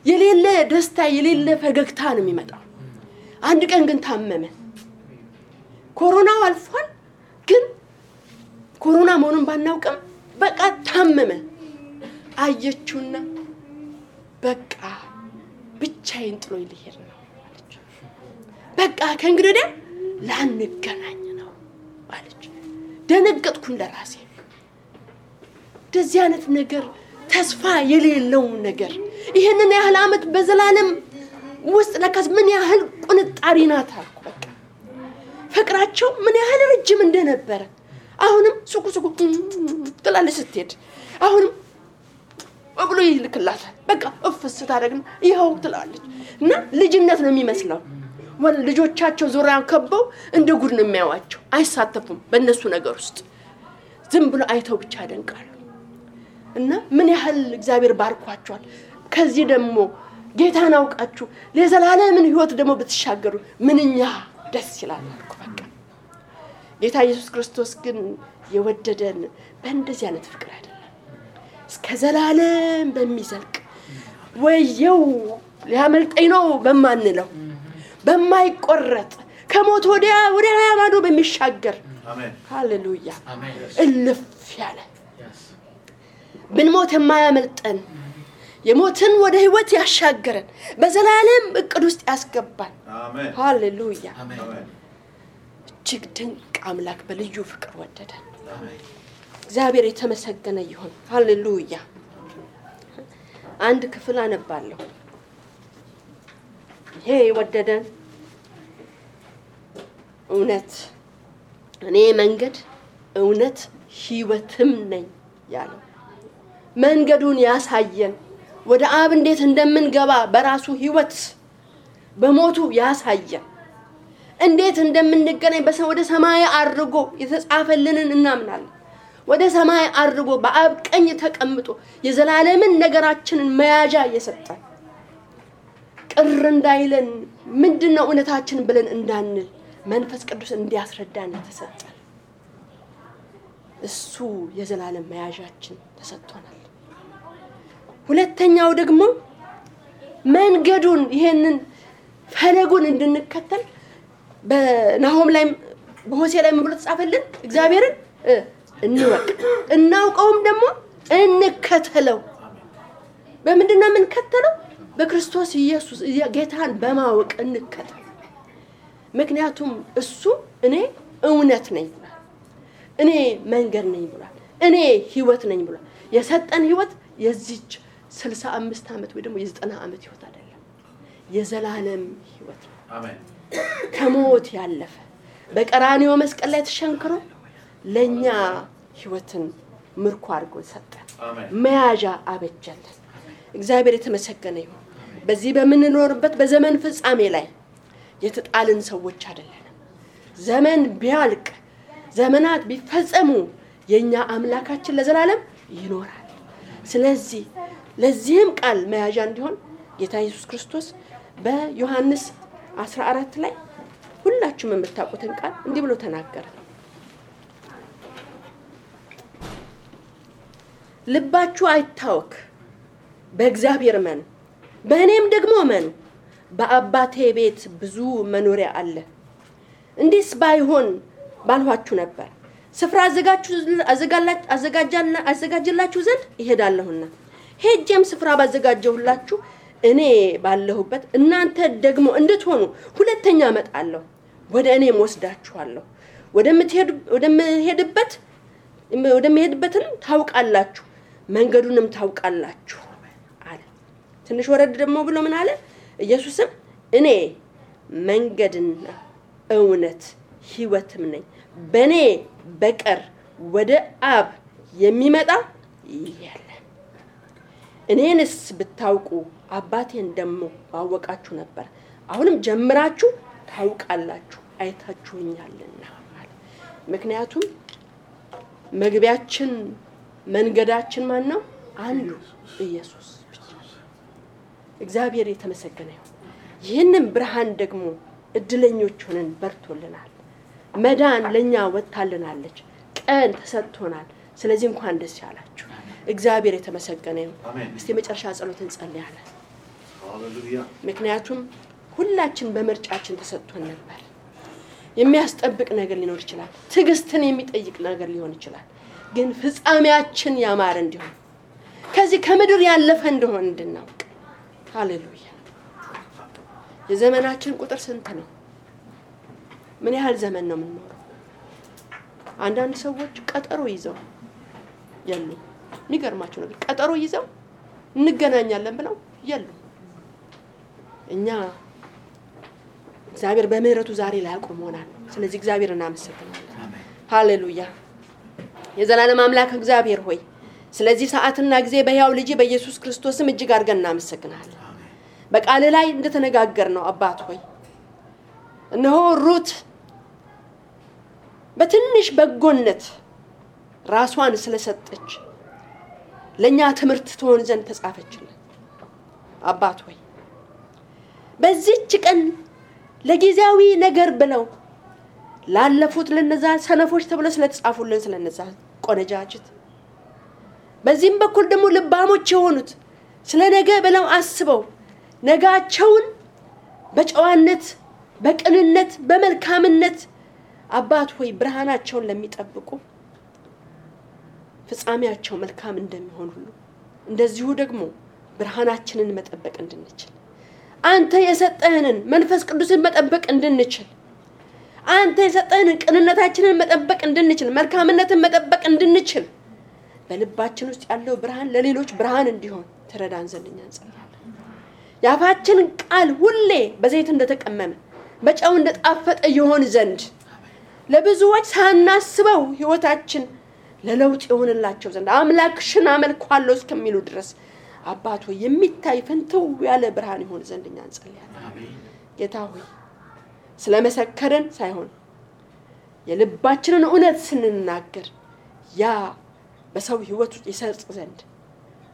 የሌለ ደስታ የሌለ ፈገግታ ነው የሚመጣው አንድ ቀን ግን ታመመ ኮሮናው አልፏል ግን ኮሮና መሆኑን ባናውቅም በቃ ታመመ አየችውና በቃ ብቻዬን ጥሎ ይልሄድ ነው አለች በቃ ከእንግዲህ ላንገናኝ ነው አለች ደነገጥኩኝ ለራሴ እንደዚህ አይነት ነገር ተስፋ የሌለው ነገር ይሄንን ያህል አመት በዘላለም ውስጥ ለካስ ምን ያህል ቁንጣሪ ናት አልኩ በቃ ፍቅራቸው ምን ያህል ረጅም እንደነበረ አሁንም ሱቁ ትላለች ስትሄድ አሁንም ወብሎ ይልክላታል በቃ እፍስ ታደርግና ይሄው ትላለች እና ልጅነት ነው የሚመስለው ልጆቻቸው ዙሪያን ከበው እንደ ጉድ ነው የሚያዋቸው አይሳተፉም በእነሱ ነገር ውስጥ ዝም ብሎ አይተው ብቻ ያደንቃሉ እና ምን ያህል እግዚአብሔር ባርኳቸዋል ከዚህ ደግሞ ጌታን አውቃችሁ ለዘላለምን ህይወት ደግሞ ብትሻገሩ ምንኛ ደስ ይላል አልኩ በቃ ጌታ ኢየሱስ ክርስቶስ ግን የወደደን በእንደዚህ አይነት ፍቅር አይደለም እስከ ዘላለም በሚዘልቅ ወየው ሊያመልጠኝ ነው በማንለው በማይቆረጥ ከሞት ወዲያ ማዶ በሚሻገር አሜን ሃሌሉያ አሜን እልፍ ያለ ብንሞት የማያመልጠን የሞትን ወደ ህይወት ያሻገረን በዘላለም እቅድ ውስጥ ያስገባን አሜን ሃሌሉያ አሜን እጅግ ድንቅ አምላክ በልዩ ፍቅር ወደደን አሜን እግዚአብሔር የተመሰገነ ይሁን ሃሌሉያ አንድ ክፍል አነባለሁ ይሄ ወደደን እውነት እኔ መንገድ እውነት ህይወትም ነኝ ያለው መንገዱን ያሳየን ወደ አብ እንዴት እንደምንገባ በራሱ ህይወት በሞቱ ያሳየ እንዴት እንደምንገናኝ ወደ ሰማይ አድርጎ የተጻፈልንን እናምናለን። ወደ ሰማይ አድርጎ በአብ ቀኝ ተቀምጦ የዘላለምን ነገራችንን መያዣ የሰጠን ቅር እንዳይለን ምንድነው እውነታችን ብለን እንዳንል መንፈስ ቅዱስ እንዲያስረዳን ተሰጠን። እሱ የዘላለም መያዣችን ተሰጥቶናል። ሁለተኛው ደግሞ መንገዱን ይሄንን ፈለጉን እንድንከተል በናሆም ላይ በሆሴ ላይ ምን ብሎ ተጻፈልን? እግዚአብሔርን እንወቅ እናውቀውም ደግሞ እንከተለው። በምንድነው የምንከተለው? በክርስቶስ ኢየሱስ ጌታን በማወቅ እንከተል። ምክንያቱም እሱ እኔ እውነት ነኝ ብሏል፣ እኔ መንገድ ነኝ ብሏል፣ እኔ ህይወት ነኝ ብሏል። የሰጠን ህይወት የዚች 65 ዓመት ወይ ደግሞ የ90 ዓመት ህይወት አይደለም፣ የዘላለም ህይወት ነው። አሜን። ከሞት ያለፈ በቀራንዮ መስቀል ላይ ተሸንክሮ ለኛ ህይወትን ምርኮ አድርጎ ሰጠን፣ መያዣ አበጀልን። እግዚአብሔር የተመሰገነ ይሁን። በዚህ በምንኖርበት በዘመን ፍጻሜ ላይ የተጣልን ሰዎች አይደለንም። ዘመን ቢያልቅ ዘመናት ቢፈጸሙ የኛ አምላካችን ለዘላለም ይኖራል። ስለዚህ ለዚህም ቃል መያዣ እንዲሆን ጌታ ኢየሱስ ክርስቶስ በዮሐንስ 14 ላይ ሁላችሁም የምታውቁትን ቃል እንዲህ ብሎ ተናገረ። ልባችሁ አይታወክ፣ በእግዚአብሔር እመኑ፣ በእኔም ደግሞ እመኑ። በአባቴ ቤት ብዙ መኖሪያ አለ። እንዲስ ባይሆን ባልኋችሁ ነበር። ስፍራ አዘጋጅላችሁ ዘንድ እሄዳለሁና ሄጄም ስፍራ ባዘጋጀሁላችሁ እኔ ባለሁበት እናንተ ደግሞ እንድትሆኑ ሁለተኛ እመጣለሁ፣ ወደ እኔም ወስዳችኋለሁ። ወደምሄድበትን ታውቃላችሁ፣ መንገዱንም ታውቃላችሁ አለ። ትንሽ ወረድ ደግሞ ብሎ ምን አለ? ኢየሱስም እኔ መንገድና እውነት ህይወትም ነኝ፣ በእኔ በቀር ወደ አብ የሚመጣ የለም። እኔንስ ብታውቁ አባቴን ደግሞ ባወቃችሁ ነበር። አሁንም ጀምራችሁ ታውቃላችሁ፣ አይታችሁኛልና አለ። ምክንያቱም መግቢያችን መንገዳችን ማን ነው? አንዱ ኢየሱስ ብቻ። እግዚአብሔር የተመሰገነ ይሁን። ይህንን ብርሃን ደግሞ እድለኞች ሆነን በርቶልናል። መዳን ለኛ ወጣልናለች፣ ቀን ተሰጥቶናል። ስለዚህ እንኳን ደስ ያላችሁ። እግዚአብሔር የተመሰገነ ይሁን። እስቲ መጨረሻ ጸሎት እንጸልያለን። ሃሌሉያ። ምክንያቱም ሁላችን በመርጫችን ተሰጥቶን ነበር። የሚያስጠብቅ ነገር ሊኖር ይችላል፣ ትግስትን የሚጠይቅ ነገር ሊሆን ይችላል። ግን ፍጻሜያችን ያማረ እንዲሆን ከዚህ ከምድር ያለፈ እንደሆነ እንድናውቅ። ሃሌሉያ። የዘመናችን ቁጥር ስንት ነው? ምን ያህል ዘመን ነው የምንኖረው? አንዳንድ ሰዎች ቀጠሮ ይዘው ያሉ የሚገርማቸው ነገር ቀጠሮ ይዘው እንገናኛለን ብለው ያሉ። እኛ እግዚአብሔር በምህረቱ ዛሬ ላይ አቆሞናል። ስለዚህ እግዚአብሔርን እናመሰግናለን። ሃሌሉያ። የዘላለም አምላክ እግዚአብሔር ሆይ ስለዚህ ሰዓትና ጊዜ በሕያው ልጅ በኢየሱስ ክርስቶስም እጅግ አድርገን እናመሰግናለን። በቃል ላይ እንደተነጋገርነው አባት ሆይ እነሆ ሩት በትንሽ በጎነት ራሷን ስለሰጠች ለኛ ትምህርት ትሆን ዘንድ ተጻፈችልን። አባት ሆይ በዚህች ቀን ለጊዜያዊ ነገር ብለው ላለፉት ለነዛ ሰነፎች ተብለው ስለተጻፉልን ስለነዛ ቆነጃጅት፣ በዚህም በኩል ደግሞ ልባሞች የሆኑት ስለነገ ብለው አስበው ነጋቸውን በጨዋነት በቅንነት በመልካምነት አባት ሆይ ብርሃናቸውን ለሚጠብቁ ፍጻሜያቸው መልካም እንደሚሆን ሁሉ እንደዚሁ ደግሞ ብርሃናችንን መጠበቅ እንድንችል አንተ የሰጠህንን መንፈስ ቅዱስን መጠበቅ እንድንችል አንተ የሰጠህንን ቅንነታችንን መጠበቅ እንድንችል መልካምነትን መጠበቅ እንድንችል በልባችን ውስጥ ያለው ብርሃን ለሌሎች ብርሃን እንዲሆን ተረዳን ዘንድ እንጸልያለን። ያፋችን ቃል ሁሌ በዘይት እንደተቀመመ በጨው እንደጣፈጠ ይሆን ዘንድ ለብዙዎች ሳናስበው ህይወታችን ለለውጥ ይሆንላቸው ዘንድ አምላክሽን አመልካለሁ እስከሚሉ ድረስ አባቶ የሚታይ ፍንትው ያለ ብርሃን ይሆን ዘንድ እንጸልያለን። ጌታ ሆይ ስለመሰከረን ሳይሆን የልባችንን እውነት ስንናገር ያ በሰው ህይወት ይሰርጽ ዘንድ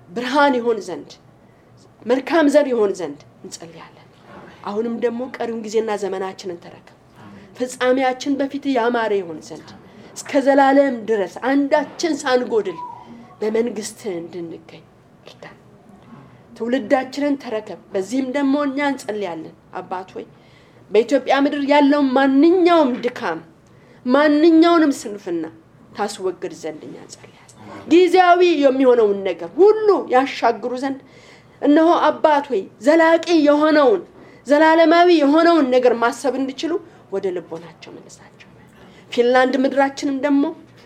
ብርሃን ይሆን ዘንድ መልካም ዘር ይሆን ዘንድ እንጸልያለን። አሁንም ደግሞ ቀሪውን ጊዜና ዘመናችንን ተረከብ። ፍጻሜያችን በፊት ያማረ ይሆን ዘንድ እስከ ዘላለም ድረስ አንዳችን ሳንጎድል በመንግስት እንድንገኝ እርዳን። ትውልዳችንን ተረከብ። በዚህም ደግሞ እኛ እንጸልያለን አባት ሆይ በኢትዮጵያ ምድር ያለው ማንኛውም ድካም ማንኛውንም ስንፍና ታስወግድ ዘንድ እኛ እንጸልያለን። ጊዜያዊ የሚሆነውን ነገር ሁሉ ያሻግሩ ዘንድ እነሆ አባት ሆይ ዘላቂ የሆነውን ዘላለማዊ የሆነውን ነገር ማሰብ እንዲችሉ ወደ ልቦናቸው መልሳቸው። ፊንላንድ ምድራችንም ደግሞ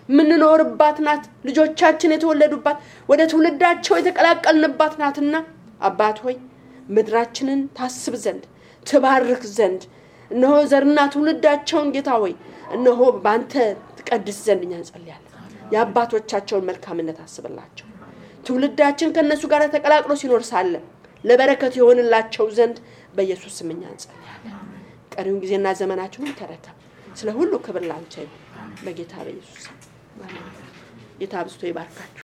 ምንኖርባት ናት። ልጆቻችን የተወለዱባት ወደ ትውልዳቸው የተቀላቀልንባት ናትና አባት ሆይ ምድራችንን ታስብ ዘንድ ትባርክ ዘንድ እነሆ ዘርና ትውልዳቸውን ጌታ ሆይ እነሆ ባንተ ተቀድስ ዘንድ እኛ እንጸልያለን። የአባቶቻቸውን መልካምነት አስብላቸው። ትውልዳችን ከነሱ ጋር ተቀላቅሎ ሲኖር ሳለ ለበረከት ይሆንላቸው ዘንድ በኢየሱስ ስም እኛ እንጸልያለን። ቀሪውን ጊዜና ዘመናችንን ተረከብ። ስለ ሁሉ ክብር ላንተ ይሁን በጌታ በኢየሱስ ስም። ጌታ አብዝቶ ይባርካችሁ።